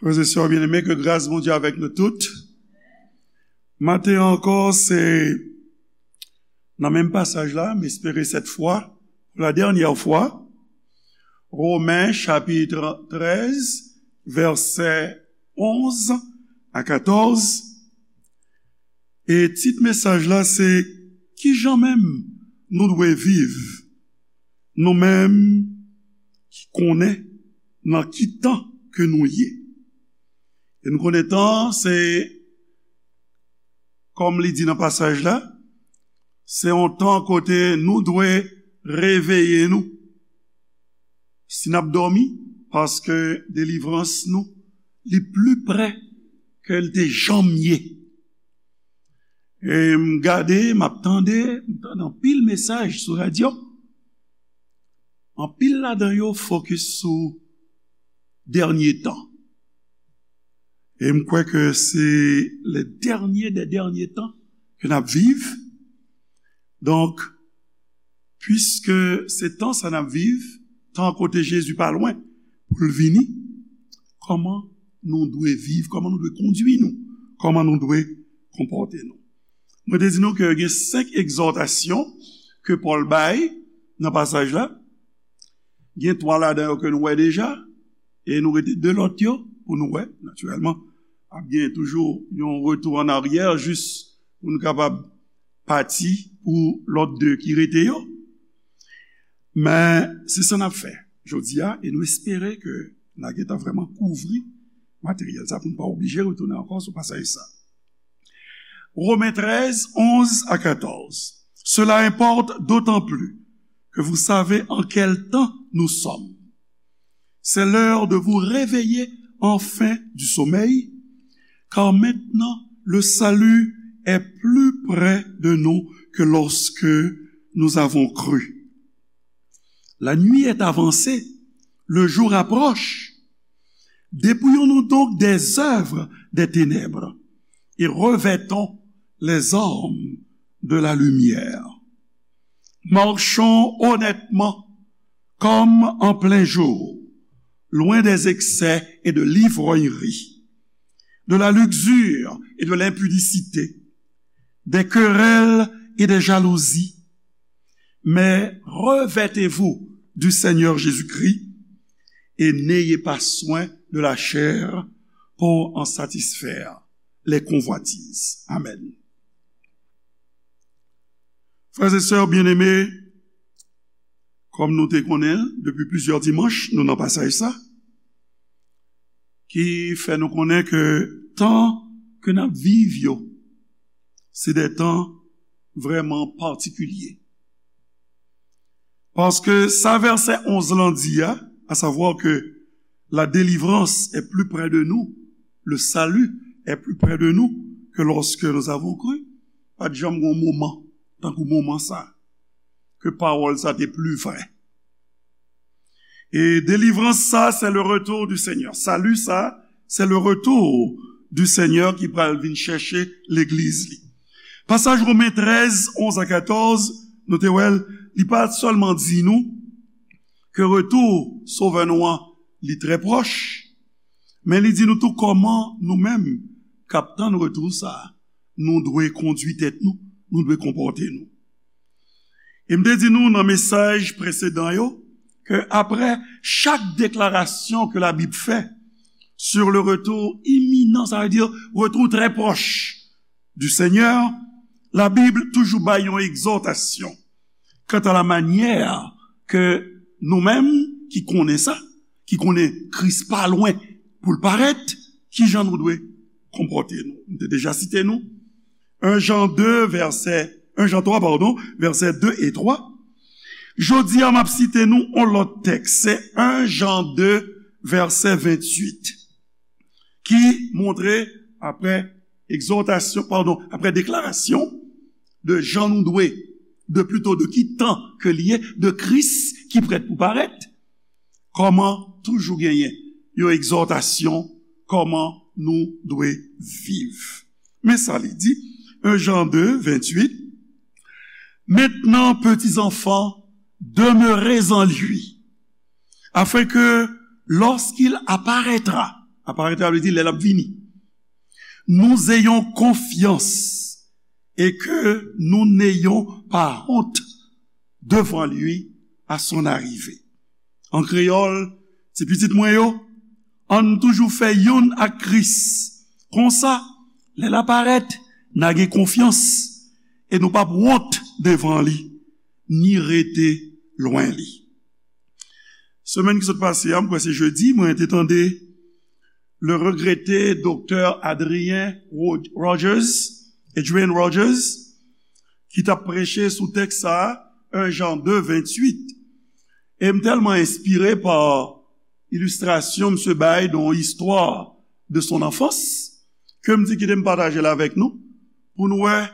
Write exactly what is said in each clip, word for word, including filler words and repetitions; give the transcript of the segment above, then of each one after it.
Frè e sè byeneme, ke gras Bondye avèk nou tout. Maten ankò, se nan menm pasaj la, m espere sèt fwa, pou la dènyè fwa, Women chapit trèz, vèsè onz a katòz. E tit mesaj la se, kijan menm nou dwe viv, nou menm ki konnen nan ki tan ke nou ye. E nou konnen tan, se, kòm li di nan pasaj la, se yon tan kote nou dwe reveye nou. Si n ap dòmi, paske delivrans nou, li pli pre ke l te janm ye. E m gade, m ap tande, m tande anpil mesaj sou radyo. Anpil ladan yo fokis sou dènye tan. E m kwè ke se le dènye dè dènye tan ke n ap viv. Donk, piske se tan sa n ap viv, tan kote Jezi pa lwen pou l vini, kòman nou dwe viv, kòman nou dwe kondui nou, kòman nou dwe konpòte nou? Mwen te di nou ke gen senk egzòtasyon ke Pòl bay nan pasaj la. Gen twa ladan yo ke nou wè deja, e nou rete de lòt yo pou nou wè, natirèlman. Ap gen toujou yon retou an aryè jis pou nou kapab pati pou lòt de ki rete yo. Men, se sa n ap fè jodi a, e nou espere ke n a gentan vrèman kouvri materyèl sa pou nou pa oblije retounen ankò sou pasaj sa. Romen trèz, onz a katòz. Cela importe d'autant plus que vous savez en quel temps nous sommes. C'est l'heure de vous réveiller enfin du sommeil, car maintenant le salut est plus près de nous que lorsque nous avons cru. La nuit est avancée, le jour approche. Dépouillons-nous donc des œuvres des ténèbres et revêtons les armes de la lumière. Marchons honnêtement comme en plein jour, loin des excès et de l'ivrognerie, de la luxure et de l'impudicité, des querelles et des jalousies. Mais revêtez-vous du Seigneur Jésus-Christ et n'ayez pas soin de la chair pour en satisfaire les convoitises. Amen. Frè e sè byeneme, kòm nou te konnen depi plizyè dimanch, nou nan pasaj sa, ki fè nou konnen ke tan ke n ap viv yo, se de tan vrèman patikilye. Paske sa vèsè onz lan di a, à savoir que la délivrance est plus près de nous, le salut est plus près de nous que lorsque nous avons cru, pa t janm gen yon moman, tankou moman sa, ke pawòl sa te pli vrè. E delivrans sa, se le retour du Seigneur. Sali sa, se le retour du Seigneur ki pral vin chèche legliz li. Pasaj Women trèz, onz a katòz, nou te wè l, li pa sèlman di nou ke retou Sovè nou an, li trè pwòch, men li di nou tou kòman nou menm k ap tann retou sa, nou dwe kondui tèt nou, nou dwe konpòte nou. E m te di nou nan mesaj presedan yo, ke apre chak deklarasyon ke Labib fè sur le retour imminent, sa vle di retou trè pwòch du Seigneur, Labib toujou bay yon egzòtasyon kanta la manyè ke nou menm ki konnen sa, ki konnen Kris pa lwen pou l parèt, kijan nou dwe konpòte nou. M te deja site nou, en Jan de, vèsè, en Jan twa, padon, vèsè de e twa. Jodi a, m ap site nou yon lòt tèks, se en Jan de, vèsè venntuit, ki montre, apre egzòtasyon, padon, apre deklarasyon de jan nou dwe, de plito de ki tan ke li ye, de Kris ki prèt pou parèt, kòman toujou genyen yon egzòtasyon, kòman nou dwe viv. Men sa li di, en Jan de, venntuit, Maintenant, petits enfants, demeurez en lui, afin que, lorsqu'il apparaîtra, Aparèt la vle di lè l ap vini. Nous ayons confiance et que nous n'ayons pas honte devant lui à son arrivée. An kreyòl, ti pitit mwen yo, ann toujou fè youn ak Kris. Konsa, lè l ap parèt, n a gen konfyans e nou p ap wont devan li, ni rete lwen li. Semèn ki sot pase a, m kwè se jedi, mwen te tande le regretté doktè Adrien Rod- Rogers, Adrian Rogers, ki t ap preche sou tèks sa a, un Jean deux, vingt-huit. E m tèlman enspire pa ilistrasyon misye bay dans Histoire de son enfance, ke m di kite m pataje l avèk nou, pou nou wè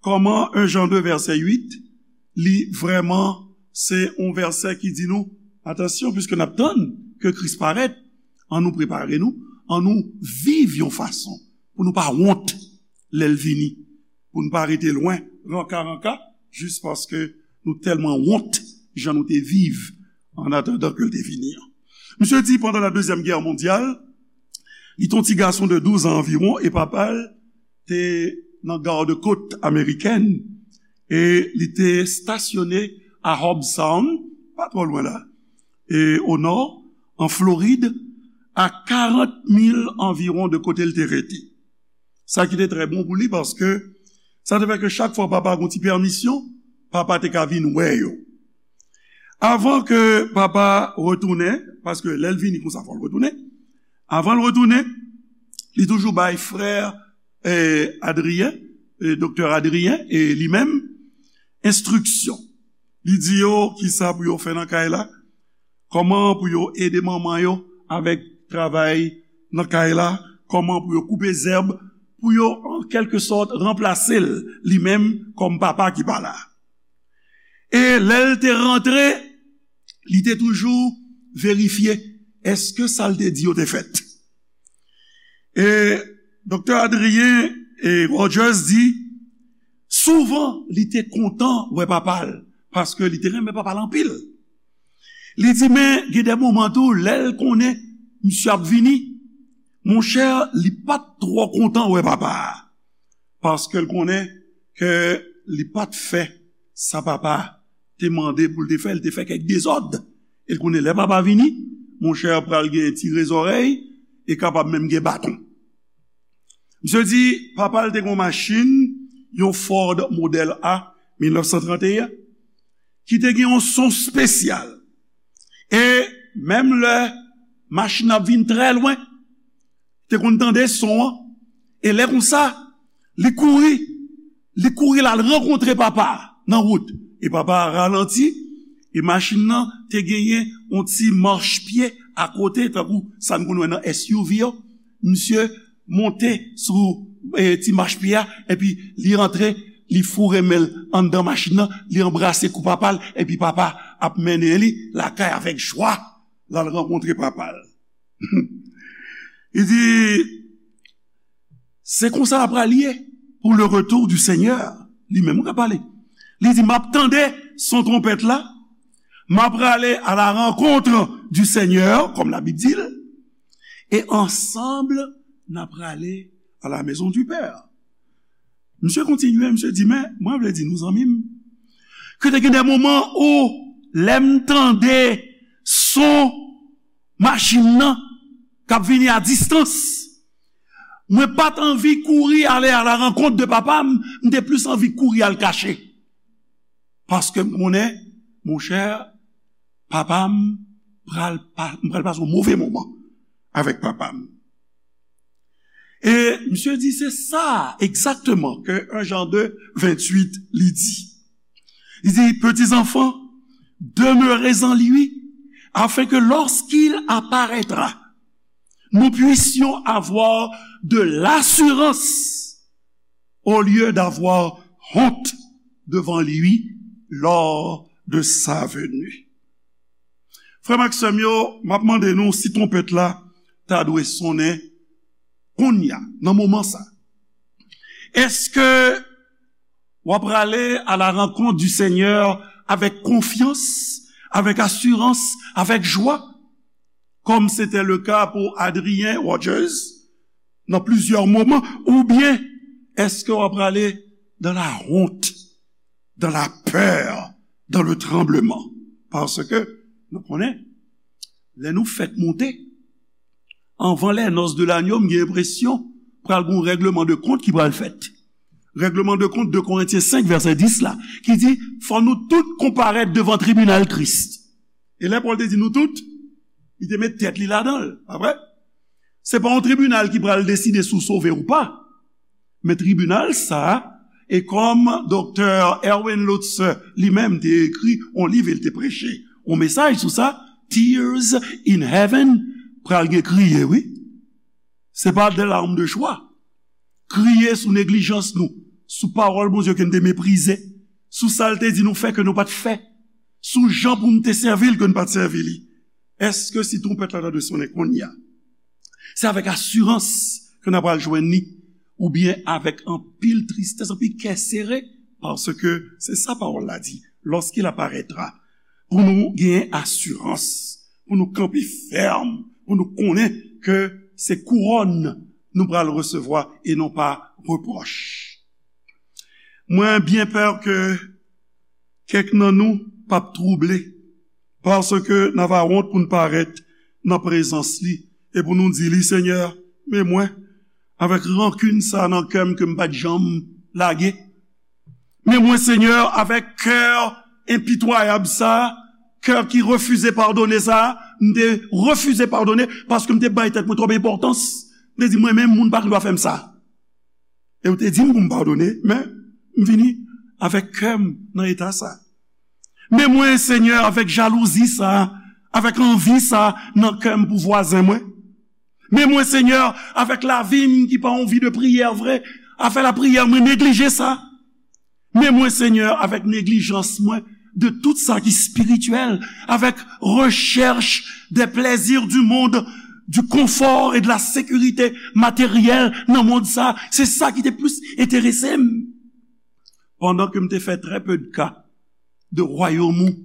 kòman un Jean deux, vèsè uit, li vrèman se yon vèsè ki di nou, atansyon, piske n ap tann ke Kris parèt, ann nou prepare nou, ann nou viv yon fason pou nou pa wont lè l vini, pou nou pa rete lwen, ranka ranka, jis paske nou tèlman wont jan nou te viv an atandan ke l te vini an. Misye di, pandan la Dezyèm Gè Mondyal, li te yon ti gason de douz an anviwon e papa l te nan gad kot amerikèn e li te estasyone a Hobbs Sound, pa twò lwen la, e o nò, an Florid, a karant mil anviwon de kote l te rete. Sa ki te trè bon pou li, paske sa te fè ke chak fwa papa gen yon ti pèmisyon, papa te ka vin wè yo. Avan ke papa retounen, paske lè l vini konsa, fò l retounen. Avan l retounen, li toujou bay frè, eh, Adrien, eh, doktè Adrien, e li menm, enstriksyon. Li di yo kisa pou yo fè nan kay la, kòman pou yo ede manman yo avèk travay nan kay la, kòman pou yo koupe zèb, pou yo, an kèlke sòt, ranplase l, li menm, kòm papa ki pa la. E lè l te rantre, li te toujou verifye èske sa l te di yo te fèt. E doktè Adrien e Rogers di, souvan, li te kontan wè papa l, paske li te renmen papa l anpil. Li di, men gen de moman tou, lè l konnen misye ap vini, monchè, li pa t twò kontan wè papa a, paske l konnen ke li pa t fè sa papa te mande pou l te fè, l te fè kèk dezòd. E l konnen lè papa vini, monchè, pral gen tire zòrèy e kapab menm gen baton. Misye di, papa l te gen yon machin, yon Ford modèl A, mil nèf san trannteyen, ki te gen yon son espesyal. E menm lè machin nan ap vin trè lwen, te konn tande son an. E lè konsa, li kouri, li kouri l al rankontre papa a nan wout. E papa a ralanti, e machin nan te genyen yon ti machpye akote, tankou sa n konn wè nan S U V yo. Misye monte sou, eh, ti machpye a, epi li rantre, li foure men l anndan machin nan, li anbrase kou papa l, epi papa ap mennen li lakay avèk jwa, l al rankontre papa l. Li di, se konsa l ap pral ye pour le retour du Seigneur. Li menm k ap pale. Li di, m ap tande son twonpèt la, m ap prale à la rencontre du Seigneur, kòm Labib di l, e ansanm, n ap prale à la maison du Père. Misye kontinye, misye di, men, mwen vle di nou, zanmi m, ke te gen de moman ou, lè m tande son machin nan k ap vini a distans, mwen pa t anvi kouri ale à la rencontre de papa m, m te plis anvi kouri al kache. Paske m konnen, monchè, papa m pral pa, m pral pase yon move moman avèk papa m. E misye di, se sa egzakteman ke un Jean deux, vingt-huit, li di. Li di, petits enfants, demeurez en lui, afin que lorsqu'il apparaîtra, nous puissions avoir de l'assurance au lieu d'avoir honte devant lui lors de sa venue. Frè m ak sè m yo, m ap mande nou si twonpèt la ta dwe sonnen kounye a, nan moman sa. Èske w ap prale à la rencontre du Seigneur avèk konfyans, avèk asirans, avèk jwa? comme c'était le cas pour Adrien Rogers, dans plusieurs moments, ou bien est-ce que w ap prale dans la honte, dans la peur, dans le tremblement? Paske nou konnen, lè nou fèk monte, anvan les noces de l'agneau, m gen enpresyon pral gen yon règleman de kont ki pral fèt. Règleman de kont de Korentyen senk, vèsè dis la, ki di, fò nou tout konparèt devan tribinal Kris. E lè Pòl te di nou tout, li te met tèt li ladan l, pa vre? Se pa yon tribinal ki pral deside si w sove ou pa. Men tribinal sa a, e kòm Doktè Erwin Lutzer li menm te ekri yon liv, e l te preche yon mesaj sou sa, Tears in Heaven, pral gen kriye, wi. Se pa de larmes de joie. Kriye sou neglijans nou, sou pawòl Bondye ke n te meprize, sou sa l te di nou fè ke nou pa t fè, sou jan pou n te sèvi l ke n pa t sèvi li. Èske si twonpèt la ta dwe sonnen kounye a, se avèk asirans ke n ap al jwenn li, oubyen avèk anpil tristès, anpil kè sere? Paske se sa pawòl la di, lorsqu'il apparaîtra, pou nou gen asirans, pou nou kanpe fèm, pou nou konnen ke se kouwòn nou pral resevwa e non pa repwòch. Mwen byen pè ke kèk nan nou p ap twouble, paske n ava wont pou n parèt nan prezans li e pou nou di li, Senyè, men mwen, avèk rankin sa nan kè m ke m pa t janm lage. Men mwen, Senyè, avèk kè enpitwayab sa, kè ki refize padone sa, m te refize padone paske m te bay tèt mwen twòp enpòtans. M te di, mwen menm, moun pa gen dwa fè m sa. E w te di m pou m padone, men m vini avèk kè m nan eta sa. Men mwen, Senyè, avèk jalouzi sa, avèk anvi sa nan kè m pou vwazen mwen. Men mwen, Senyè, avèk lavi m ki pa yon vi de priyè vre, afè lapriyè, mwen neglije sa. Men mwen, Senyè, avèk neglijans mwen de tout sa ki espirityèl, avèk rechèch des plaisirs du monde, du confort et de la sécurité matérielle nan mond sa, se sa ki te plis enterese m. Pandan ke m te fè très peu de cas de royaume ou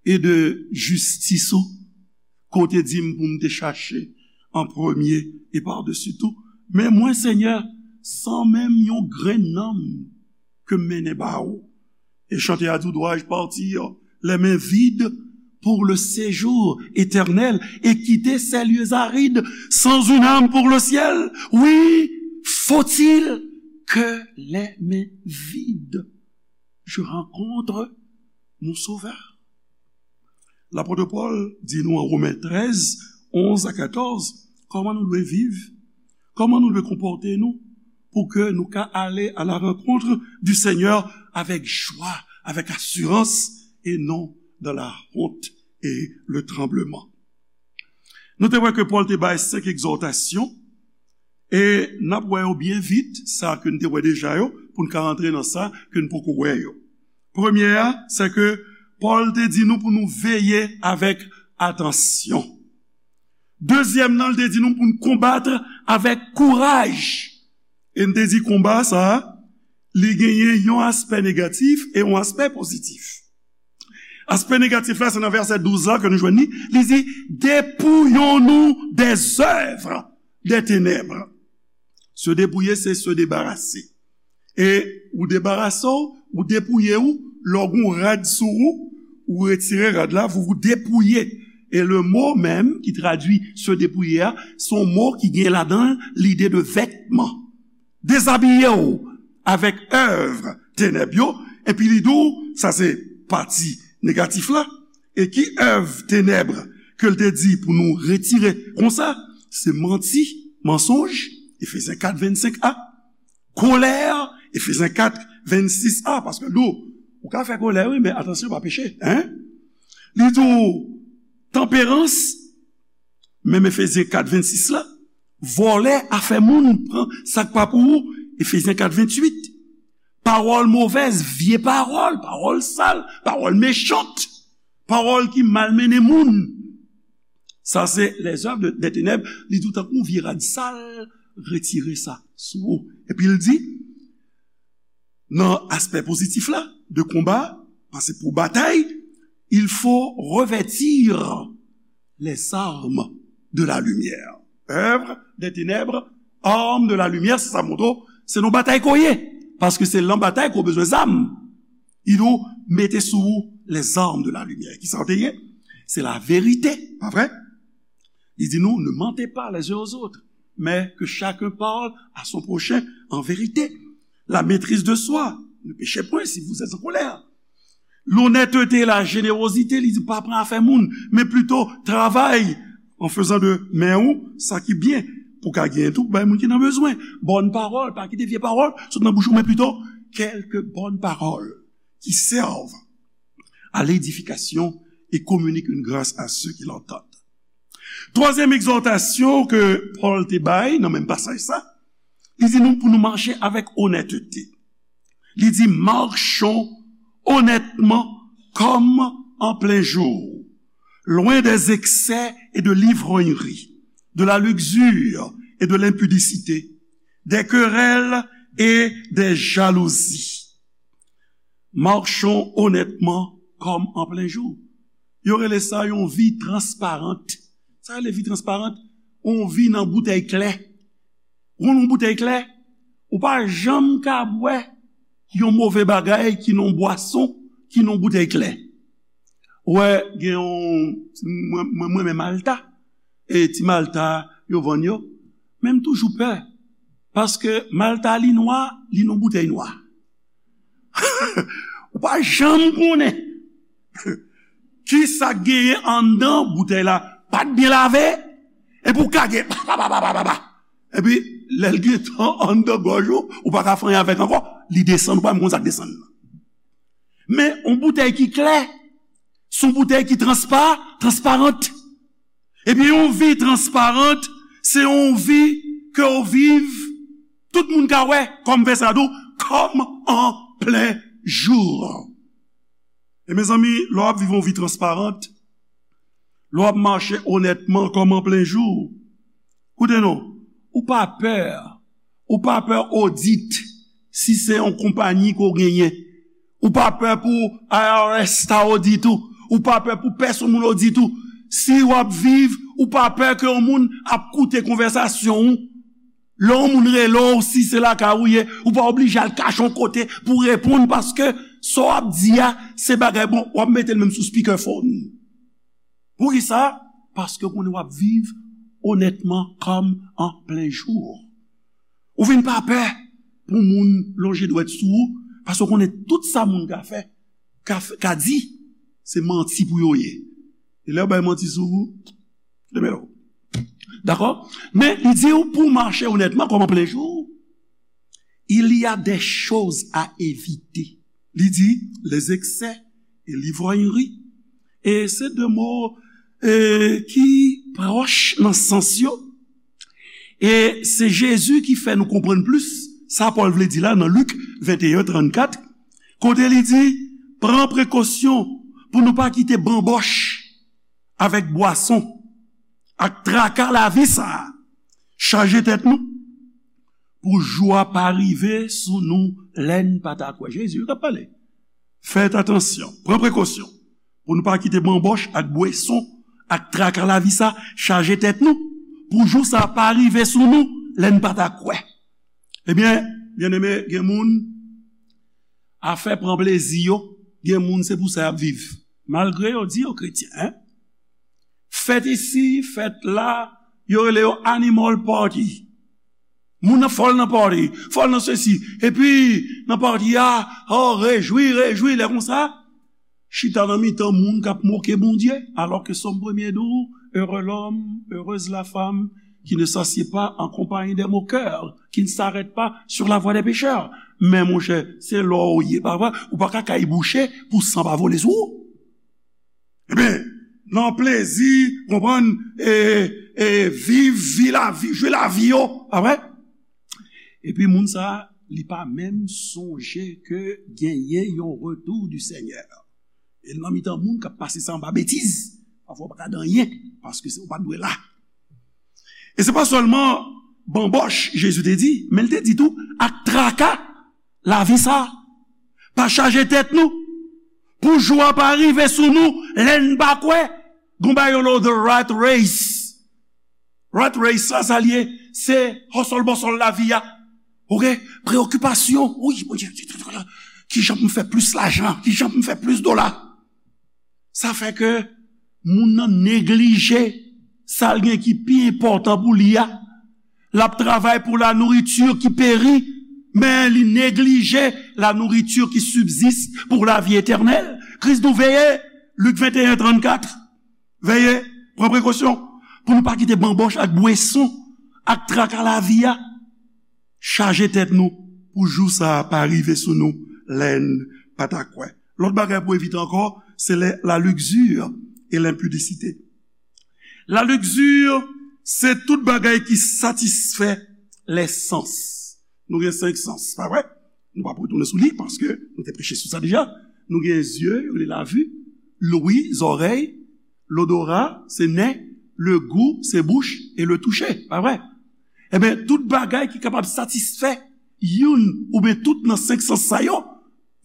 e de jistis ou, ke w te di m pou m te chache an premye e padesi tou. Men mwen, Senyè, san menm yon grenn nanm ke m mennen ba ou. E chante a di, dois-je partir les mains vides pour le séjour éternel et quitter ces lieux arides sans une âme pour le ciel? Oui, faut-il que les mains vides je rencontre mon Sauveur. Lapot Pòl di nou an Women trèz, onz a katòz, kòman nou dwe viv, kòman nou dwe konpòte nou pou ke nou ka ale à la rencontre du Seigneur avec joie, avec assurance et non dans la honte et le tremblement. Nou te wè ke Pòl te bay senk egzòtasyon, e n ap wè yo byen vit, sa ke n te wè deja yo, pou n ka rantre nan sa ke n poko wè yo. Premye a, se ke Pòl te di nou pou nou veye avèk atansyon. Dezyèm nan, l te di nou pou n konbat avèk kouraj. E n te di konba sa a, li genyen yon aspè negatif e yon aspè pozitif. Aspè negatif la, se nan vèsè douz la ke nou jwenn li. Li di, dépouillons-nous des œuvres des ténèbres. Se depouye, se se debarase. E ou debarase w, ou depouye w, lè w gen yon rad sou ou, ou retire rad la, vous vous dépouillez. E le mo menm ki tradui se depouye a, se yon mo ki gen ladan l lide de vètman. Dezabiye w avèk èv tenèb yo, epi li di w, sa se pati negatif la, e ki èv tenèb ke l te di pou nou retire konsa, se manti, mansonj, Efezyen kat vennsenk a, kolè, Efezyen kat vennsis a, paske l di w, ou ka fè kolè, wi, men atansyon, pa peche, en? Li di w, tanperans, menm Efezyen kat vennsis la, vòlè, afè moun, pran sa k pa pou ou, Efezyen kat venntuit. Pawòl movèz, vye pawòl, pawòl sal, pawòl mechant, pawòl ki malmennen moun. Sa se les œuvres de, des ténèbres, li di w tankou yon vye rad sal, retire sa sou ou. Epi l di, nan aspè pozitif la, de konba, paske pou batay, il faut revêtir les armes de la lumière. Œuvre des ténèbres, armes de la lumière, se sa m montre w, se nan batay ke w ye. Paske se lan batay ke w bezwen zam. Li di w, mete sou ou les armes de la lumière. Kisa w te ye? Se laverite, pa vre? Li di nou, ne mentez pas les uns aux autres, mais que chacun parle à son prochain en vérité. La maîtrise de soi, ne péchez point si vous êtes en colère. Lonnètete, lajénérozite, li di pa pran afè moun, men plito travay an fezan de men ou sa ki byen, pou ka genyen tou bay moun ki nan bezwen. Bòn pawòl, pa kite vye pawòl sot nan bouch ou, men plito quelques bonnes paroles qui servent à l'édification et communiquent une grâce à ceux qui l'entendent. Twazyèm egzòtasyon ke Pòl te bay nan menm pasaj sa, li di nou pou nou mache avèk onètete. Li di, marchons honnêtement comme en plein jour, loin des excès et de l'ivrognerie, de la luxure et de l'impudicité, des querelles et des jalousies. Marchons honnêtement comme en plein jour. Yo rele sa yon vi transparant. Sa rele vi transparant, yon vi nan boutèy klè. Ou konn yon boutèy klè, ou pa janm ka bwè yon move bagay ki nan bwason, ki nan boutèy klè. Ou wè, gen yon, mwen, mwen, mwen renmen Malta. E ti Malta yo vann yo. Men m toujou pè. Paske Malta li nwa, li nan boutèy nwa. Ou pa janm konnen kisa k genyen anndan boutèy la. Pa t byen lave. Epi w kage. Pa, pa, pa, pa, pa, pa, pa. Epi, lè l gentan anndan gòj ou, ou pa ka fè anyen avèk ankò. Li desann, ou pa menm konn sa k desann nan. Men, yon boutèy ki klè, se yon boutèy ki transpa, transparant. Ebyen, yon vi transparant, se yon vi ke w viv, tout moun ka wè, kòm vèsè a di w, comme en plein jour. E mezanmi, lè w ap viv yon vi transparant, lè w ap mache onètman comme en plein jour, koute non, ou pa pè, ou pa pè odit, si se yon konpayi ke w genyen, ou pa pè pou I R S ta odit ou, ou pa pè pou pèsonn moun odit ou, si w ap viv, ou pa pè ke yon moun ap koute konvèsasyon w, lè yon moun rele w, si se lakay ou ye, ou pa oblije al kache yon kote pou reponn, paske sa w ap di a, se bagay, bon, w ap mete l menm sou speakerphone. Poukisa? Paske w konnen w ap viv onètman comme en plein jour. Ou vin pa pè pou moun lonje dwèt sou ou, paske w konnen tout sa moun ka fè, ka, ka di, se manti pou yo ye. E lè yo bay manti sou ou, demelo. Dakò? Men, li di w pou w mache onètman, comme en plein jour, il y a des choses à éviter. Li di, les excès et l'ivrognerie. E se de mo, e, ki pwòch nan sans yo. E se Jezi ki fè nou konprann plis sa Pòl vle di la nan Lik venteyen trannkat, kote li di, pran prekosyon pou nou pa kite banbòch avèk bwason ak traka lavi sa a chaje tèt nou, pou jou a pa rive sou nou lè n pa ta kwè. Jezi wi k ap pale. Fèt atansyon, pran prekosyon, pou nou pa kite banbòch ak bwason ak traka lavi sa chaje tèt nou, pou jou sa pa rive sou nou lè n pa ta kwè. Ebyen, byeneme, gen moun, afè pran plezi yo, gen moun se pou sa y ap viv. Malgre yo di yo kretyen, en. Fèt isi, fèt la, yo rele yo animal party. Moun nan fòl nan party, fòl nan sesi. Epi, nan party a, oh, rejwi, rejwi, lè konsa, chita nan mitan moun k ap moke Bondye, alò ke Sòm premye di w, heureux l'homme, heureuse la femme, qui ne s'assied pas en compagnie des moqueurs, qui ne s'arrête pas sur la voie des pécheurs. Men monchè, se lò w ye, pa vre? Ou pa ka kay bouche pou san pa vole sou ou. Ebyen, nan plezi, konprann, e, e, viv vi lavi, jwi lavi yo, pa vre? Epi moun sa, li pa menm sonje ke genyen yon retour du Seigneur. E l nan mitan moun k ap pase sa anba betiz, pafwa w pa ka di anyen, paske se, ou pa t dwe la. E se pa sèlman banbòch, Jezi te di, men l te di tou, ak traka lavi sa. Pa chaje tèt nou, pou jou a pa rive sou nou, lè n pa kwè. Gon bagay yo rele the rat race. Rat race la, sa l ye, se hustle bustle lavi a. Oke? Preyokipasyon. Wi, Bondye, kijan pou m fè plis lajan? Kijan pou m fè plis dola? Sa fè ke moun nan neglije sa l gen ki pi enpòtan pou li a. L ap travay pou la nourriture qui périt, men li neglije la nourriture qui subsiste pour la vie éternelle. Kris di nou veye, Lik venteyen trannkat. Veye, pran prekosyon pou nou pa kite banbòch ak bweson ak traka lavi a chaje tèt nou pou jou sa a pa rive sou nou lè n pa ta kwè. Lòt bagay pou evite ankò, se lè la luxure et l'impudicité. La luxure, se tout bagay ki satisfè lè sans. Nou gen senk sans, pa vre? Nou p ap retounen sou li, paske nou te preche sou sa deja. Nou gen zye, yo rele lavi, lwi, zòrèy, lodora, se nen, le gou, se bouch, e le touche, pa vre? Ebyen, tout bagay ki kapab satisfè youn oubyen tout nan senk sans sa yo,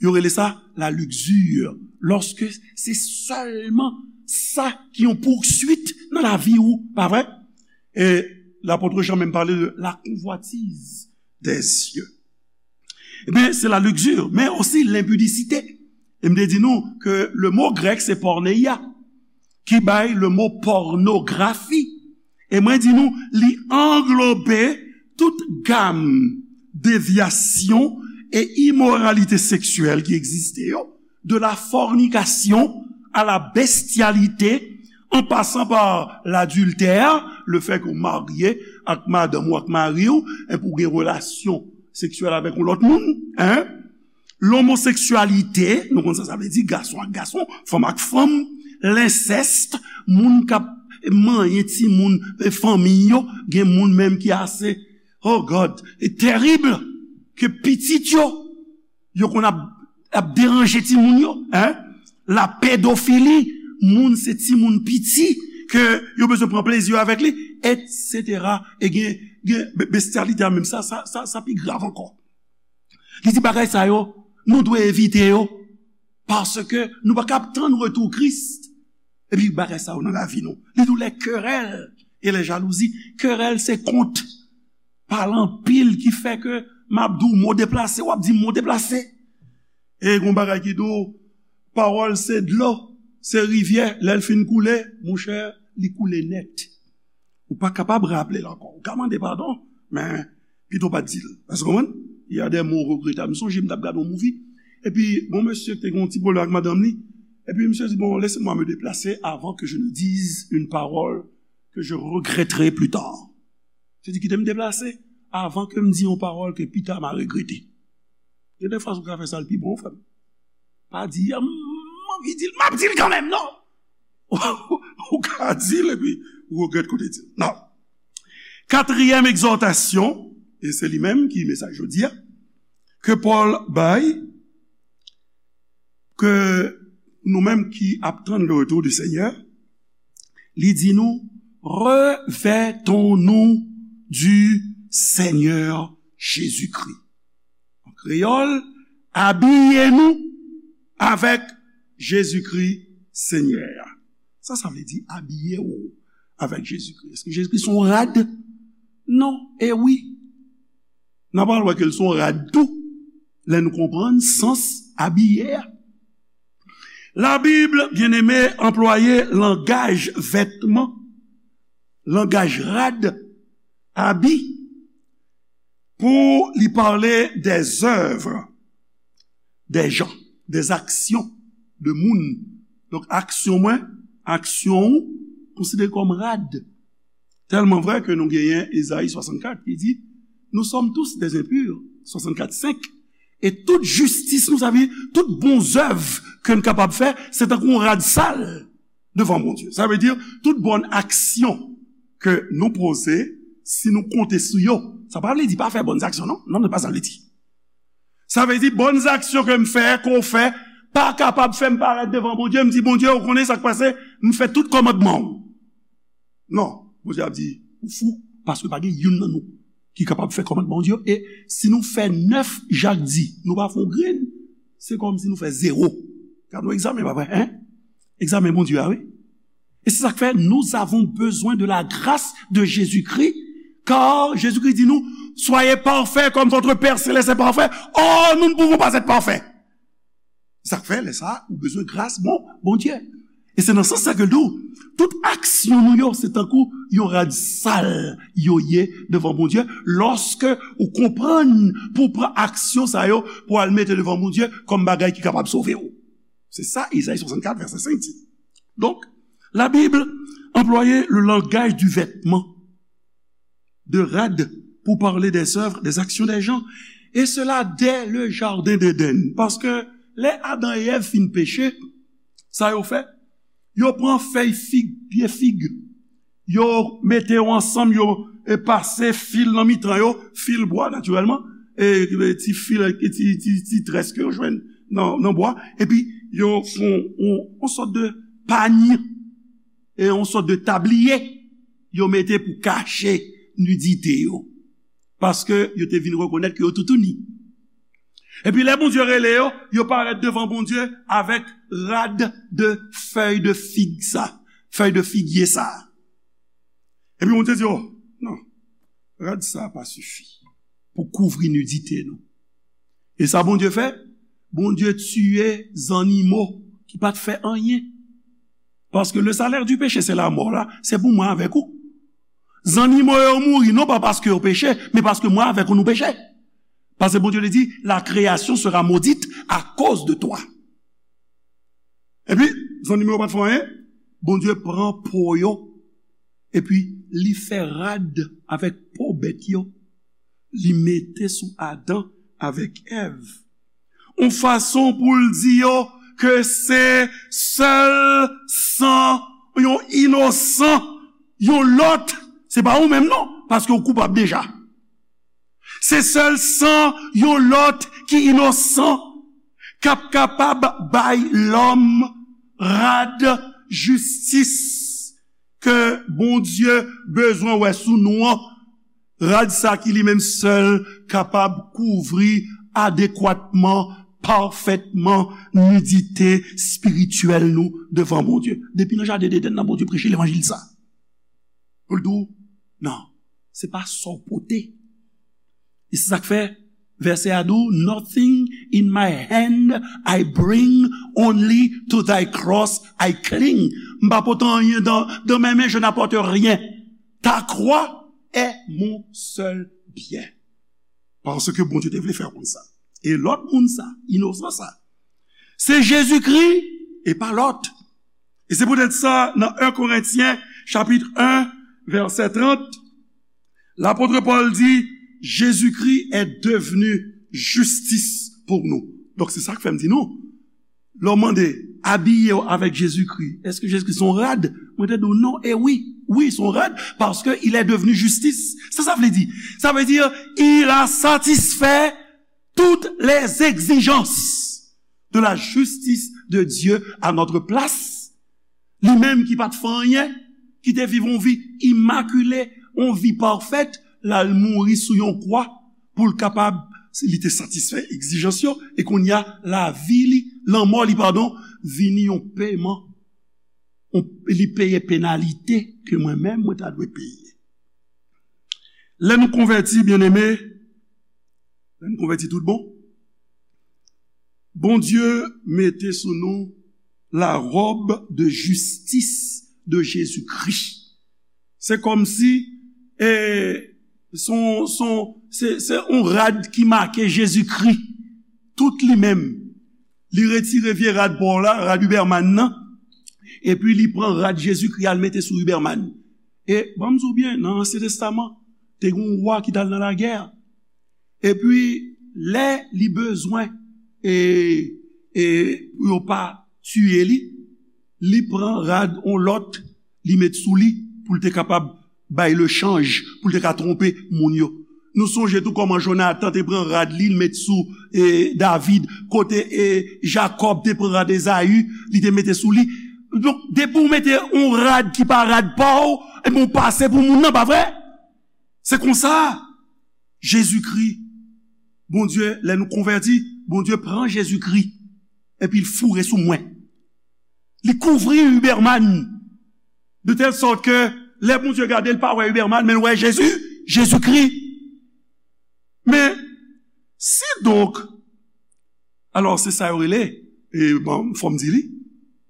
yo rele sa la luxure. Lòske se sèlman sa ki yon pousuit nan lavi ou, pa vre? E lapot Jan menm pale de la convoitise des yeux. Ebyen, se la luxure, men osi lenpidisite. E m te di nou ke le mo grèk se porneia, ki bay le mo pònografi. E mwen di nou, li anglobe tout gam devyasyon e imoralite seksyèl ki egziste yo, de la fornication à la bestialité, en passant par l'adultère, le fait que w marye ak madanm ou, ak mari w, epi w gen relasyon seksyèl avèk yon lòt moun, en? Lomoseksyalite, nou konn sa sa vle di, gason ak gason, fanm ak fanm, lensèst, moun k ap manyen timoun, e, fanmi yo, gen moun menm ki ase, oh God, e terib, ke pitit yo, yo konn ap, ap deranje timoun yo, en? La pedofili, moun se timoun piti, ke yo bezwen pran plezi yo avèk li, etsetera. E gen, gen be-, bestyalite a menm, sa, sa, sa, sa pi grav ankò. Li di bagay sa yo, nou dwe evite yo, paske nou pa kab tann retou Kris. Epi bagay sa yo nan lavi nou. Li di w les querelles et les jalousies. Kerèl se kont. Pale anpil ki fè ke m ap di w mo deplase, w ap di mo deplase. E gon bagay ki di w, pawòl se dlo, se rivyè, lè l fin koule, monchè, li koule nèt. Ou pa kapab raple l ankò. Ou ka mande padon, men pito pa t di l. Èske w konprann? Il y a des mots regrettables. M sonje m t ap gade yon movie, epi gon mesye ki te gen yon ti pwoblèm ak madanm li, epi misye di, bon, laissez-moi me déplacer avant que je ne dise une parole que je regretterai plus tard. Misye di, kite m deplase avan ke m di yon pawòl ke pita m a regrete. Gen de fwa ou ka fè sa l pi bon, frè m. Pa di, a, m anvi di l, m ap di l kanmenm, non? Ou ka di l epi ou regrèt kote di l. Non. Katriyèm egzòtasyon, e se li menm ki mesaj jodi a, ke Pòl bay, ke nou menm ki ap tann le retour du Seigneur, li di nou, revêtons-nous du Seigneur Jésus-Christ. An kreyòl, abiye nou avèk Jezikri Senyè a. Sa sa vle di, abiye w avèk Jezikri? Èske Jezikri se yon rad? Non, e wi. N a pral wè ke l se yon rad tou, lè nou konprann sans abiye a. Labib, byeneme, anplwaye langaj vètman, langaj rad, abi, pou li pale dèzèv dè jan, dèzaksyon de moun. Donk, aksyon mwen, aksyon ou, konsidere kòm rad. Tèlman vrè ke nou genyen Ezayi swasannkat ki di, nous sommes tous des impurs, swasannkat senk, e tout jistis nou, sa vle di tout bon zèv ke n kapab fè, se tankou yon rad sal devan Bondye. Sa vle di tout bòn aksyon ke nou poze, si nou konte sou yo, sa pa vle di pa fè bòn aksyon, non. Non, se pa sa l vle di. Sa vle di bòn aksyon ke m fè, ke w fè, pa kapab fè m parèt devan Bondye, m di, Bondye, ou konnen sa k pase, m fè tout kòmandman w. Non, Bondye ap di, ou fou, paske pa gen youn nan nou ki kapab fè kòmandman Bondye yo. E si nou fè nèf Jak di, nou pa fè yon grenn, se kòmsi nou fè zewo. Gad yon egzamen, pa vre, en? Egzamen Bondye a, wi. E se sa k fè, nous avons besoin de la grâce de Jésus-Christ, car Jésus-Christ di nou, soyez parfaits comme votre Père céleste est parfait. Or, nous ne pouvons pas être parfaits. Sa k fè, lè sa, ou bezwen gras, bon, Bondye. E se nan sans sa ke l di w, tout aksyon nou yo, se tankou yon rad sal yo ye devan Bondye, lòske ou konprann pou w pran aksyon sa yo, pou w al mete devan Bondye kòm bagay ki kapab sove w. Se sa Izayi swasannkat, vèsè senk di. Donk, la Bible employait le langage du vêtement, de rad, pour parler des œuvres, des actions des gens, et cela dès le jardin d'Éden. Paske lè Adan e Èv fin peche, sa yo fè? Yo pran fèy fig, pye fig, yo mete yo ansanm, yo e pase fil nan mitan yo, fil bwa, natirèlman, e, e ti fil, e ti, ti, ti très ke yo jwenn nan, nan bwa, epi yo fè yon, yon, yon sòt de pany, e yon sòt de tabliye, yo mete pou kache nidite yo. Paske yo te vin rekonèt ke yo toutouni. Epi lè Bondye rele yo, yo parèt devan Bondye avèk rad de fèy de fig sa, fèy de figye sa. Epi Bondye di, "Oh, non, rad sa pa sifi pou kouvri nidite nou." E sa Bondye fè? Bondye tiye zannimo ki pa t fè anyen. Paske le salaire du péché, c'est la mort, la, se pou mwen avèk ou. Zannimo yo mouri, non pa paske yo peche, men paske mwen avèk ou nou peche. Paske Bondye li di, la création sera maudite à cause de toi. Epi, zannimo yo pa t fè anyen, Bondye pran po yo, epi li fè rad avèk po bèt yo, li mete sou Adan avèk Èv. Yon fason pou l di yo ke se sèl san yon inosan, yon lòt, se pa ou menm non, paske w koupab deja. Se sèl san yon lòt ki inosan k ap kapab bay lòm rad jistis ke Bondye bezwen wè sou nou an. Rad sa ki li menm sèl kapab kouvri adekwatman, pafètman, nidite espirityèl nou devan Bondye. Depi nan jaden Edenn nan, Bondye preche levanjil sa. Pou l di w, non, se pa sa w pote. E se sa k fè vèsè a di w, "Nothing in my hand I bring, only to thy cross I cling." M pa pote anyen dan, dan men men, je n'apporte rien. Ta croix est mon seul bien. Paske Bondye te vle fè w konn sa. E lòt moun sa, inosan sa, se Jezikri e pa lòt. E se poutèt sa, nan en Korentyen, chapit en, vèsè trant, lapot Pòl di, Jésus-Christ est devenu justice pour nous. Donk, se sa k fè m di nou, lè w mande, abiye w avèk Jezikri, èske Jezikri se yon rad? Mwen te di w non, e wi, wi, se yon rad, paske il est devenu justice. Sa sa vle di? Sa vle di, il a satisfait toutes les exigences de la justice de Dieu à notre place. Li menm ki pa t fè anyen, ki te viv yon vi imakile, yon vi pafèt, l al mouri sou yon kwa pou l kapab, li te satisfè egzijans yo, e kounye a, lavi li, lanmò li, padon, vini yon peman, yon, li peye penalite ke mwen menm, mwen ta dwe peye. Lè nou konvèti, byeneme, lè nou konvèti tout bon, Bondye mete sou nou la robe de justice de Jésus-Christ. Se kòmsi, e, se yon, se yon, se, se yon rad ki make Jezikri, tout li menm. Li retire vye rad pa w la, rad Huberman nan, epi li pran rad Jezikri al mete sou Huberman. E, ban m di w byen, nan Ansyen Testaman, te gen yon wa ki t al nan lagè. Epi, lè li bezwen, e, e, pou yo pa tiye li, li pran rad yon lòt, li met sou li, pou l te kapab bay lechanj, pou l te ka twonpe moun yo. Nou sonje tou kòman Jonatan te pran rad li, l met sou, e, David, kote, e, Jakòb te pran rad Ezayi, li te mete sou li. Donk, depi w mete yon rad ki pa rad pa w, ebyen, w pase pou moun nan, pa vre? Se konsa, Jezikri, Bondye, lè nou konvèti, Bondye pran Jezikri, epi l foure sou mwen. Li kouvri Huberman. De tèl sòt ke lè Bondye gade, l pa wè Huberman, men l wè Jezi, Jezikri. Men, si donk, alò, se sa yo rele, e bon, fò m di li,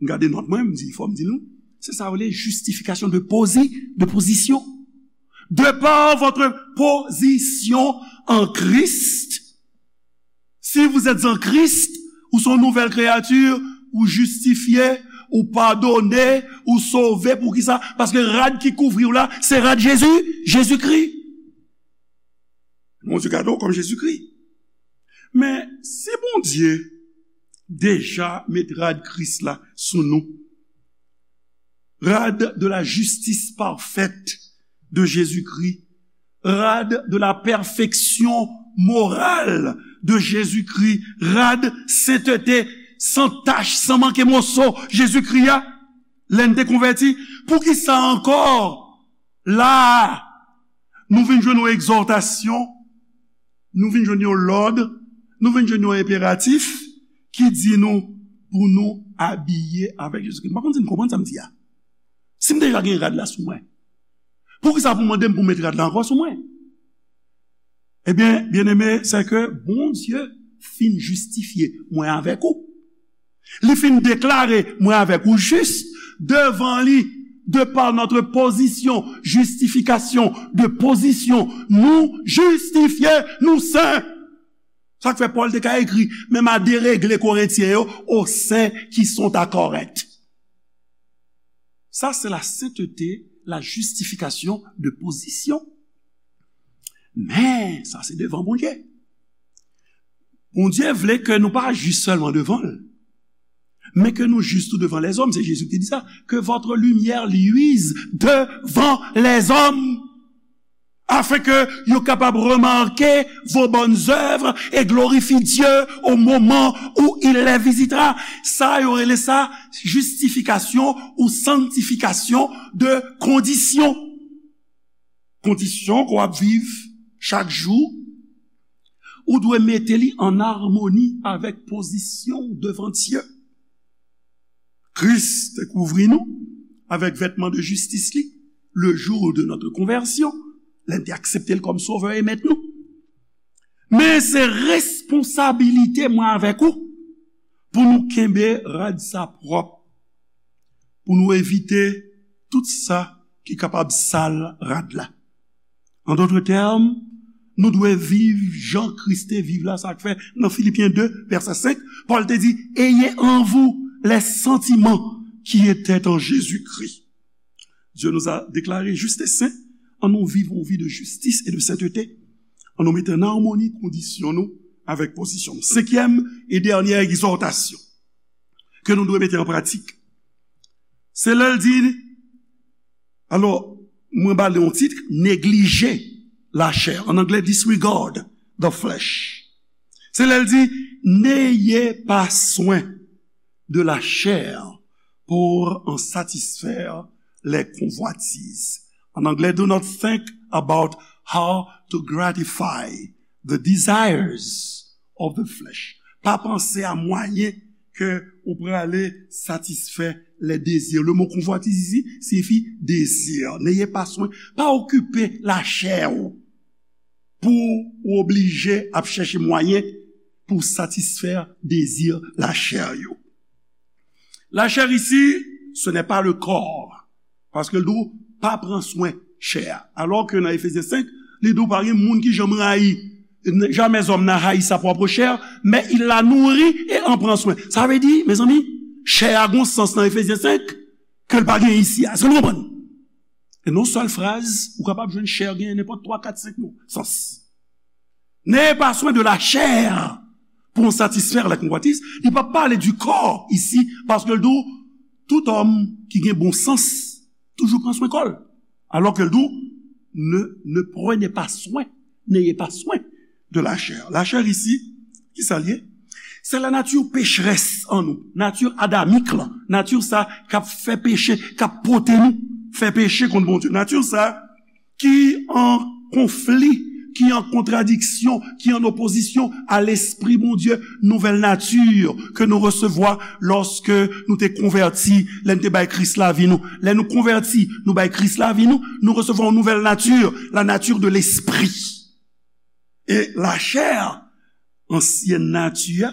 m gade nòt mwen, m di, fò m di nou, se sa yo rele justification de posi-, de position. De par votre position en Christ, si vous êtes en Christ, ou se yon nouvèl kreyati, ou jistifye, ou padone, ou sove. Poukisa? Paske rad ki kouvri w la, se rad Jezi, Jezikri. Bondye gade w kòm Jezikri. Men, si Bondye deja met rad Kris la sou nou, rad de la justice parfaite de Jésus-Christ, rad de la perfection morale de Jésus-Christ, rad senteté, san tach, san manke moso Jezikri a, lè n te konvèti, poukisa ankò la a, nou vin jwenn yon egzòtasyon, nou vin jwenn yon lòd, nou vin jwenn yon enperatif ki di nou pou nou abiye avèk Jezikri. M pa konn si n konprann sa m di a. Si m deja gen rad la sou mwen, poukisa pou w mande m pou m met rad la ankò sou mwen? Ebyen, byeneme, sè ke Bondye fin jistifye mwen avèk ou. Li fin deklare mwen avèk ou jis devan li, de par notre position, justification de position, nou jistifye, nou sen. Sa k fè Pòl te ka ekri, menm a deregle Korentyen yo, aux saints qui sont à Corinthe. Ça, c'est la sainteté, la justification de position. Men, sa se devan Bondye. Bondye vle ke nou pa jis sèlman devan l, men ke nou jis tou devan lèzòm. Se Jezi ki te di sa, que votre lumière luise devant les hommes, afin que yo kapab remake vos bonnes œuvres et glorifie Dieu au moment où il les visitera. Sa yo rele sa jistifikasyon ou sanktifikasyon de kondisyon. Kondisyon ke w ap viv chak jou, ou dwe mete li an amoni avèk pozisyon w devan Dye. Kris te kouvri nou avèk vètman de jistis li, le jour de notre conversion, lè n te aksepte l kòm Sovè e Mèt nou. Men se responsabilite mwen avèk ou pou nou kenbe rad sa pwòp, pou nou evite tout sa ki kapab sal rad la. An dòt tèm, nou dwe viv jan Kris te viv la, sa k fè nan Filipyen de, vèsè senk, Pòl te di, ayez en vous les sentiments qui étaient en Jésus-Christ. Dieu nous a déclarés justes et saints, ann nou viv yon vi de jistis e de senteté. Ann nou mete an amoni kondisyon nou avèk pozisyon nou. Senkyèm e dènyè egzòtasyon ke nou dwe mete an pratik, se lè l di, alò, mwen ba li yon tit, neglije lachè. An anglè, disregard the flesh. Se lè l di, n'ayez pas soin de la chair pour en satisfaire les convoitises. En anglais, do not think about how to gratify the desires of the flesh. Pa panse a mwayen ke ou prale satisfè les désirs. Le mot convoitise ici signifie désir. N'ayez pas soin. Pa okipe lachè ou pou ou oblije ap chèche mwayen pou satisfè dezi lachè yo. Lachè isi, ce n'est pas le corps. Paske l di w, pa pran swen chè a. Alò ke nan Efezyen senk, li di w pa gen moun ki janm rayi. Jamais homme n'a haï sa propre chair, mais il la nourrit et en prend soin. Sa vle di, mezanmi, chè a gon sans nan Efezyen senk ke l pa gen isi a. Èske nou konprann? E nan yon sèl fraz, ou kapab jwenn chè genyen nenpòt twa, kat, senk mo, sans. N'ayez pas soin de la chair pour en satisfaire les convoitises. Li pa pale du corps isi, paske l di w, tout òm ki gen bon sans toujou pran swen kò l. Alò ke l di w, ne, ne prenez pas soin, n'ayez pas soin de la chair. Lachè isi, ki sa l ye? Se la nature pécheresse an nou, nati adamik lan, nati sa k ap fè peche, k ap pote nou fè peche kont Bondye. Nati sa ki an konfli ki an kontradiksyon, ki an opozisyon a lespri Bondye, nouvèl nati ke nou resevwa lòske nou te konvèti, lè n te bay Kris lavi nou. Lè nou konvèti, nou bay Kris lavi nou, nou resevwa yon nouvèl nati, la nature de l'esprit. E lachè, ansyèn nati a,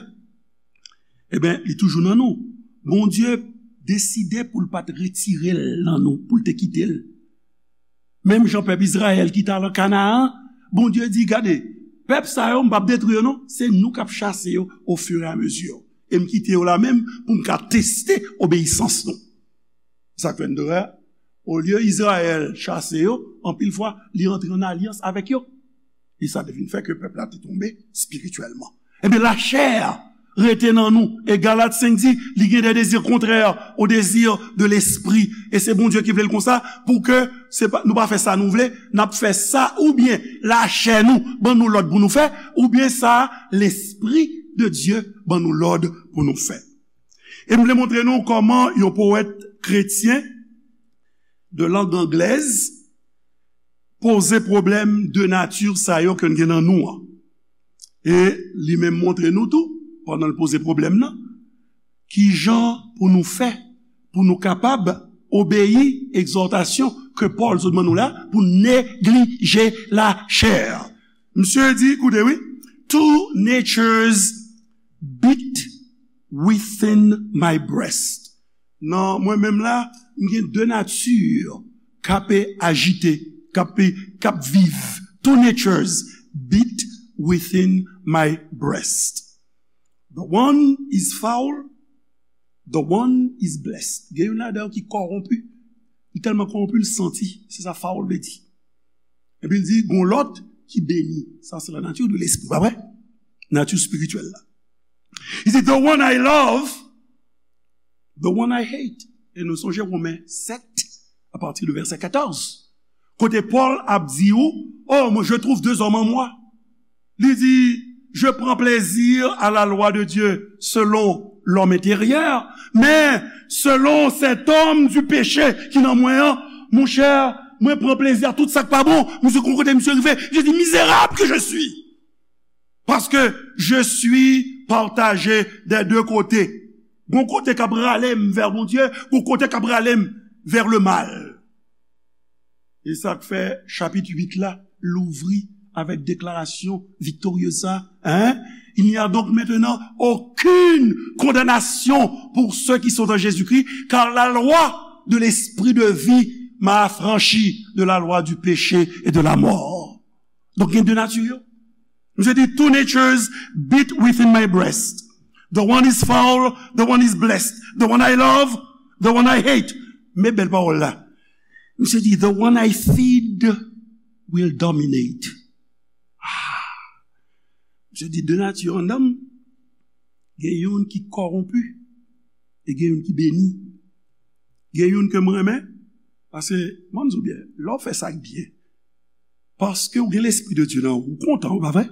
ebyen, li toujou nan nou. Bondye deside pou l pa t retire l nan nou, pou l te kite l. Menm jan pèp Izrayèl ki t al an Kanaan, Bondye di, "Gade, pèp sa yo, m p ap detwi yo non, se nou k ap chase yo au fur et à mesure. E m kite yo la menm pou m ka teste obeyisans nou." Sa k fè n dwe, olye Izrayèl chase yo, anpil fwa, li antre an alyans avèk yo. E sa te vin fè ke pèp la te tonbe espirityèlman. Ebyen, lachè rete nan nou. E Galat senk di, li gen des désirs contraires aux désirs de l'esprit. E se Bondye ki vle l konsa, pou ke se pa, nou pa fè sa nou vle, n ap fè sa oubyen lachè nou ban nou lòd pou nou fè, oubyen sa lespri de Dye ban nou lòd pou nou fè. E m vle montre nou kòman yon powèt kretyen de lang anglèz poze pwoblèm de nati sa yo ke n gen nan nou an. E li menm montre nou tou, pandan l poze pwoblèm nan, ki jan pou nou fè, pou nou kapab obeyi egzòtasyon ke Pòl sot ban nou la, pou neglije lachè. Misye di, koute wi, "Two natures beat within my breast." Nan mwen menm la, m gen de nati k ap ajite, k ap, k ap viv. "Two natures beat within my breast. The one is foul, the one is blessed." Gen youn ladan yo ki kòwonpi. Li tèlman kòwonpi, l santi. Se sa foul vle di. Epi l di, "Gon lòt ki beni." Sa se la nature de l'esprit, pa vre? Nati espirityèl la. Li di, "The one I love, the one I hate." E nou sonje Women sèt, a pati de vèsè katòz. Kote Pòl ap di ou, "Oh, moi, je trouve deux hommes en moi." Li di, "Je prends plaisir à la loi de Dieu selon l'homme intérieur, mais selon cet homme du péché ki nan mwen an, monchè, mwen pran plezi a tout sa k pa bon." Misye, gon kote misye rive, li di, "Misérable que je suis, parce que je suis partagé des deux côtés." Gon kote k ap rale m vè Bondye, gon kote k ap rale m vè le mal. E sa k fè chapit uit la louvri avèk deklarasyon viktoryez sa, hein? "Il n'y a donc maintenant aucune condamnation pour ceux qui sont en Jésus-Christ, car la loi de l'esprit de vie m'a affranchi de la loi du péché et de la mort." Donk, gen de nati yo. Misye di, "Two natures beat within my breast. The one is foul, the one is blessed. The one I love, the one I hate." Men bèl pawòl la. Misye di, "The one I feed will dominate." Ah. Misye di, "De nati anndan m, gen youn ki kòwonpi, e gen youn ki beni. Gen youn ke m renmen." Paske, mwen, m di w byen, lè w fè sa k byen, paske w gen lespri de Dye nan ou, ou kontan, ou pa vre?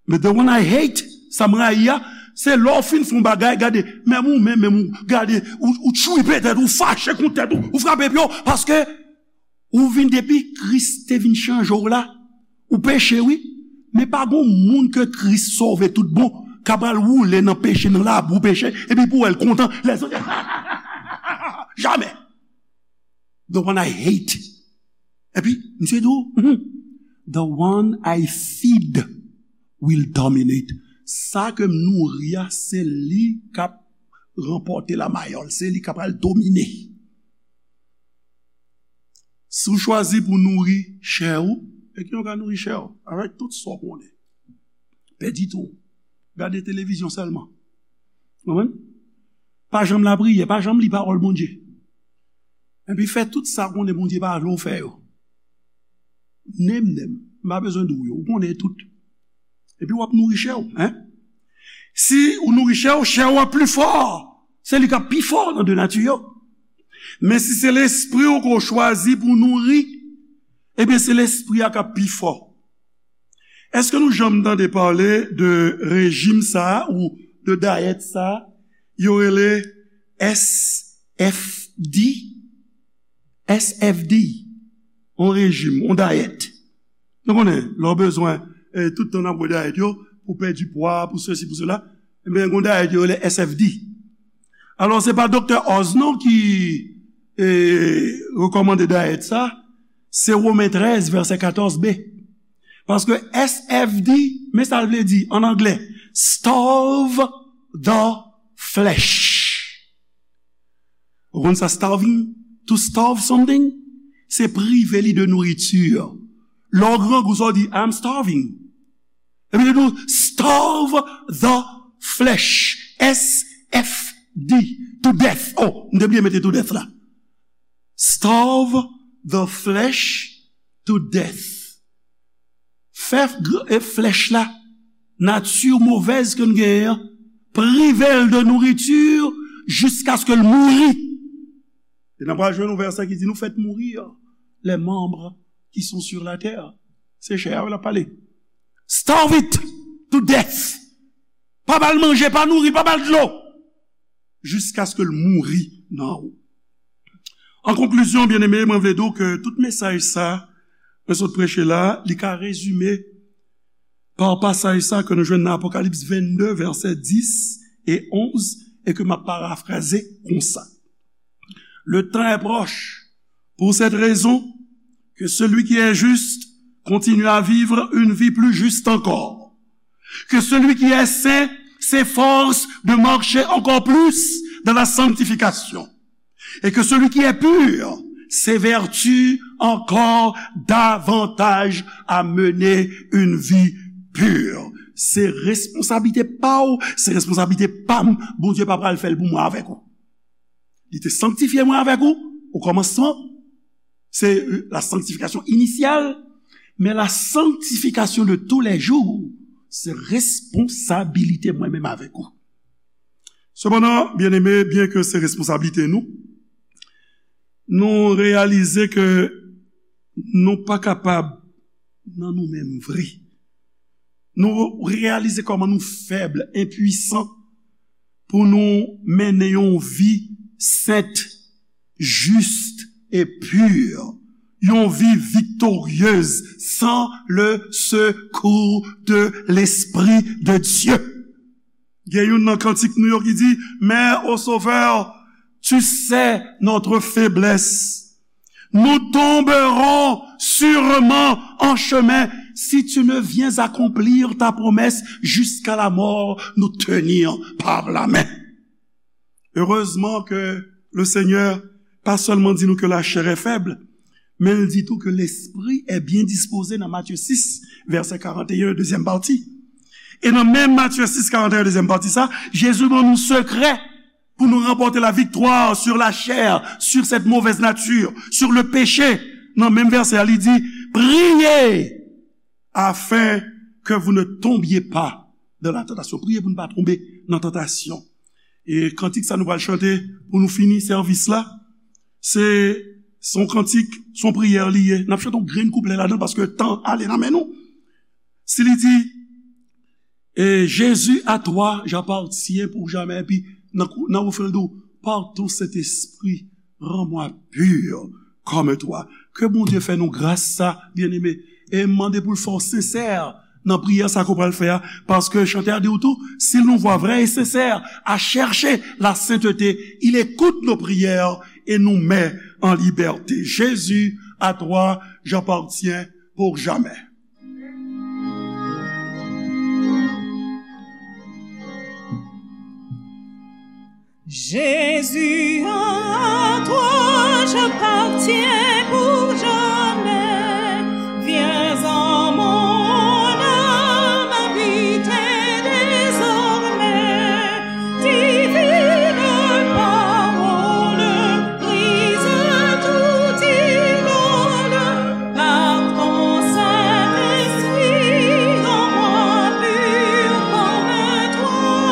Men the one I hate, sa m rayi a, se lè w fin fè yon bagay, gade, menm ou menm, menm ou, gade, ou, ou tchwipe tèt ou, fache kont tèt ou, ou frape pye w, paske ou vin depi Kris te vin chanje w la, ou peche wi, men pa gon moun ke Kris sove tout bon, ka pral woule nan peche, nan labou peche, epi pou w wè l kontan, lèzòt, jamè. The one I hate. Epi, misye di w, "Hmm, the one I feed will dominate." Sa ke m nouri a, se li k ap ranpòte lamayòl, se li k ap al domine. Si w chwazi pou nouri chè ou, e ki jan w ka nouri chè ou? Avèk tout sa w konnen. Pèdi tan w. Gade televizyon sèlman. Konprann? Pa janm lapriyè, pa janm li pawòl Bondye. Epi fè tout sa w konnen Bondye pa vle w fè yo. Name them. M pa bezwen di w yo. Ou konnen tout. Epi w ap nouri chè w, hein? Si ou nouri chè w, chè w ap pli fò. Se li k ap pi fò nan de nati yo. Men si se lespri w ke w chwazi pou w nouri, ebyen se lespri a k ap pi fò. Èske nou janm tande pale de rejim sa a ou de dayèt sa a? Yo rele S F D. S F D, yon rejim, yon dayèt. Nou konnen, lè w bezwen, eh, tout tan n ap wè dayèt yo, pou pèdi pwa, pou sesi, pou sela, ebyen, gen dayèt yo rele S F D. Alò, se pa Doktè Oz non ki, eh, rekòmande dayèt sa, se Women trèz, vèsè katòz B. Paske S F D, men sa l vle di an anglè, starve the flesh. Ou konn sa, starving? To starve something, se prive li de nouriti. Lè w grangou, sa w di, "I'm starving." Epi li di w, "Starve the flesh." S F D, to death. Oh, m te bliye mete to death la. Starve the flesh to death. Fè gr- e flèch la, nati movèz ke n genyen an, prive l de nouriti jiskaske l mouri. E n ap pral jwenn yon vèsè ki di, "Nous faites mourir les membres qui sont sur la terre." Se chè a l ap pale. Starve it to death. Pa ba l manje, pa nouri, pa ba l dlo. Jiskaske l mouri nan ou. An konklizyon, byeneme, mwen vle di w ke tout mesaj sa mwen sot preche la, li ka rezime pa pasaj sa ke nou jwenn nan Apokalips vennde, vèsè dis e onz, e ke m ap parafraze konsa. Le temps est proche. Pour cette raison, que celui qui est juste continue à vivre une vie plus juste encore. Que celui qui est saint s'efforce de marcher encore plus dans la sanctification. Et que celui qui est pur s'évertue encore davantage à mener une vie pure. Se responsablite pa w, se responsablite pa m. Bondye pa pral fè l pou mwen avèk ou. Li te sanktifye mwen avèk ou, o kòmansman. Se, euh, la sanctification initiale, men la sanctification de tous les jours, se responsabilite mwen menm avèk ou. Sepandan, byeneme, byenke se responsablite nou, nou reyalize ke nou pa kapab nan nou menm vre. Nou reyalize kòman nou fèb, enpwisan pou nou mennen yon vi sent, jis e pi, yon vi viktoryez san le sekou de Lespri de Dye. Gen youn nan kantik nou yo ki di, "Mais, ô Sauveur, tu sais notre faiblesse. Nous tomberons sûrement en chemin. Si tu ne viens accomplir ta promesse jusqu'à la mort, nous tenir par la main." Heureusement que le Seigneur pas seulement di nou ke la chair est faible, men l di tou ke lespri est bien disposé nan Matye sis, vèsè karant e en, dezyèm pati. E nan menm Matye sis, karant e en, dezyèm pati sa, Jezi ban nou sekrè pou nou ranpòte la viktwa sur la chair, sur cette mauvaise nature, sur le péché. Nan menm vèsè a, li di, "Priez afin que vous ne tombiez pas dans la tentation." Priye pou nou pa tonbe nan tantasyon. E kantik sa nou pral chante pou nou fini sèvis la, se, se yon kantik, se yon priyè li ye. N ap chante yon grenn kouplè ladan l paske tan ale nan men nou. Si li di, et Jésus, à toi j'appartiens pour jamais. Epi, nan, nan refren l di w, par ton Saint-Esprit, rends-moi pur comme toi. Ke Bondye fè nou gras sa, byeneme. E m mande pou l fè w sensè nan priyè sa ke w pral fè a. Paske chantè a di w tou, si l nou vwa vrè e sensè, à chercher la sainteté, il écoute nos prières et nous met en liberté. Jésus, à toi j'appartiens pour jamais. Jésus, à toi j'appartiens pour jamais. Viens en mon âme habiter désormais. Divine parole, brise tout idole, par ton Saint-Esprit, rends-moi pur comme toi,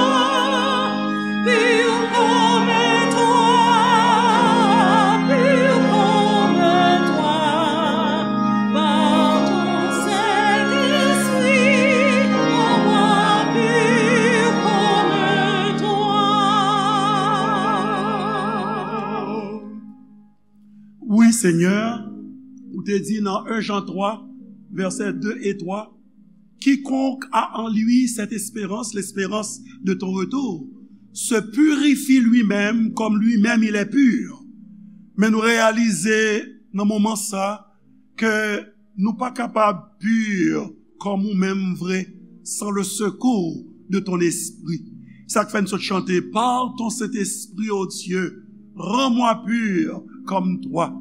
pur comme toi, pur comme toi, par ton Saint-Esprit, rends-moi pur comme toi. Wi, Senyè, ou te di nan en Jan twa, versets deux et trois, quiconque a en lui cette espérance, l'espérance de ton retour, se purifie lui-même comme lui-même il est pur. Men nou reyalize nan moman sa ke nou pa kapab pur kòm ou menm vre san le secours de ton esprit. Sa k fè n sot chante, par ton Saint-Esprit, ô Dieu, rends-moi pur comme toi.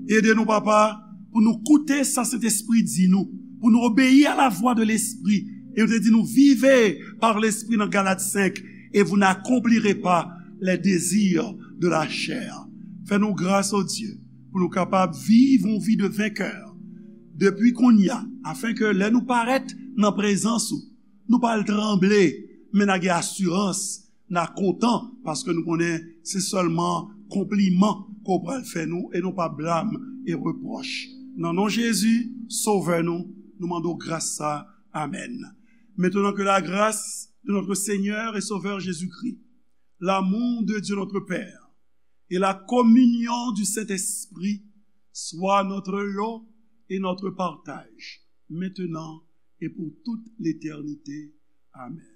Ede nou, Papa, pou nou koute sa Sentespri di nou, pou nou obeyi a la vwa de Lespri. E nou te di nou, vivez par l'Esprit nan Galat senk, et vous n'accomplirez pas les désirs de la chair. Fè nou gras, ô Dye, pou nou kapab viv yon vi de venkè depi kounye a, afen ke lè nou parèt nan prezans ou, nou pa al tranble, men n a gen asirans, n a kontan, paske nou konnen se sèlman konpliman ke w pral fè nou e non pa blam e repwòch. Nan non Jezi, Sovè nou, nou mande w gras sa. Amèn. Maintenant que la grâce de notre Seigneur et Sauveur Jésus-Christ, l'amour de Dieu notre Père et la communion du Saint-Esprit soient notre lot et notre partage, maintenant et pour toute l'éternité. Amèn.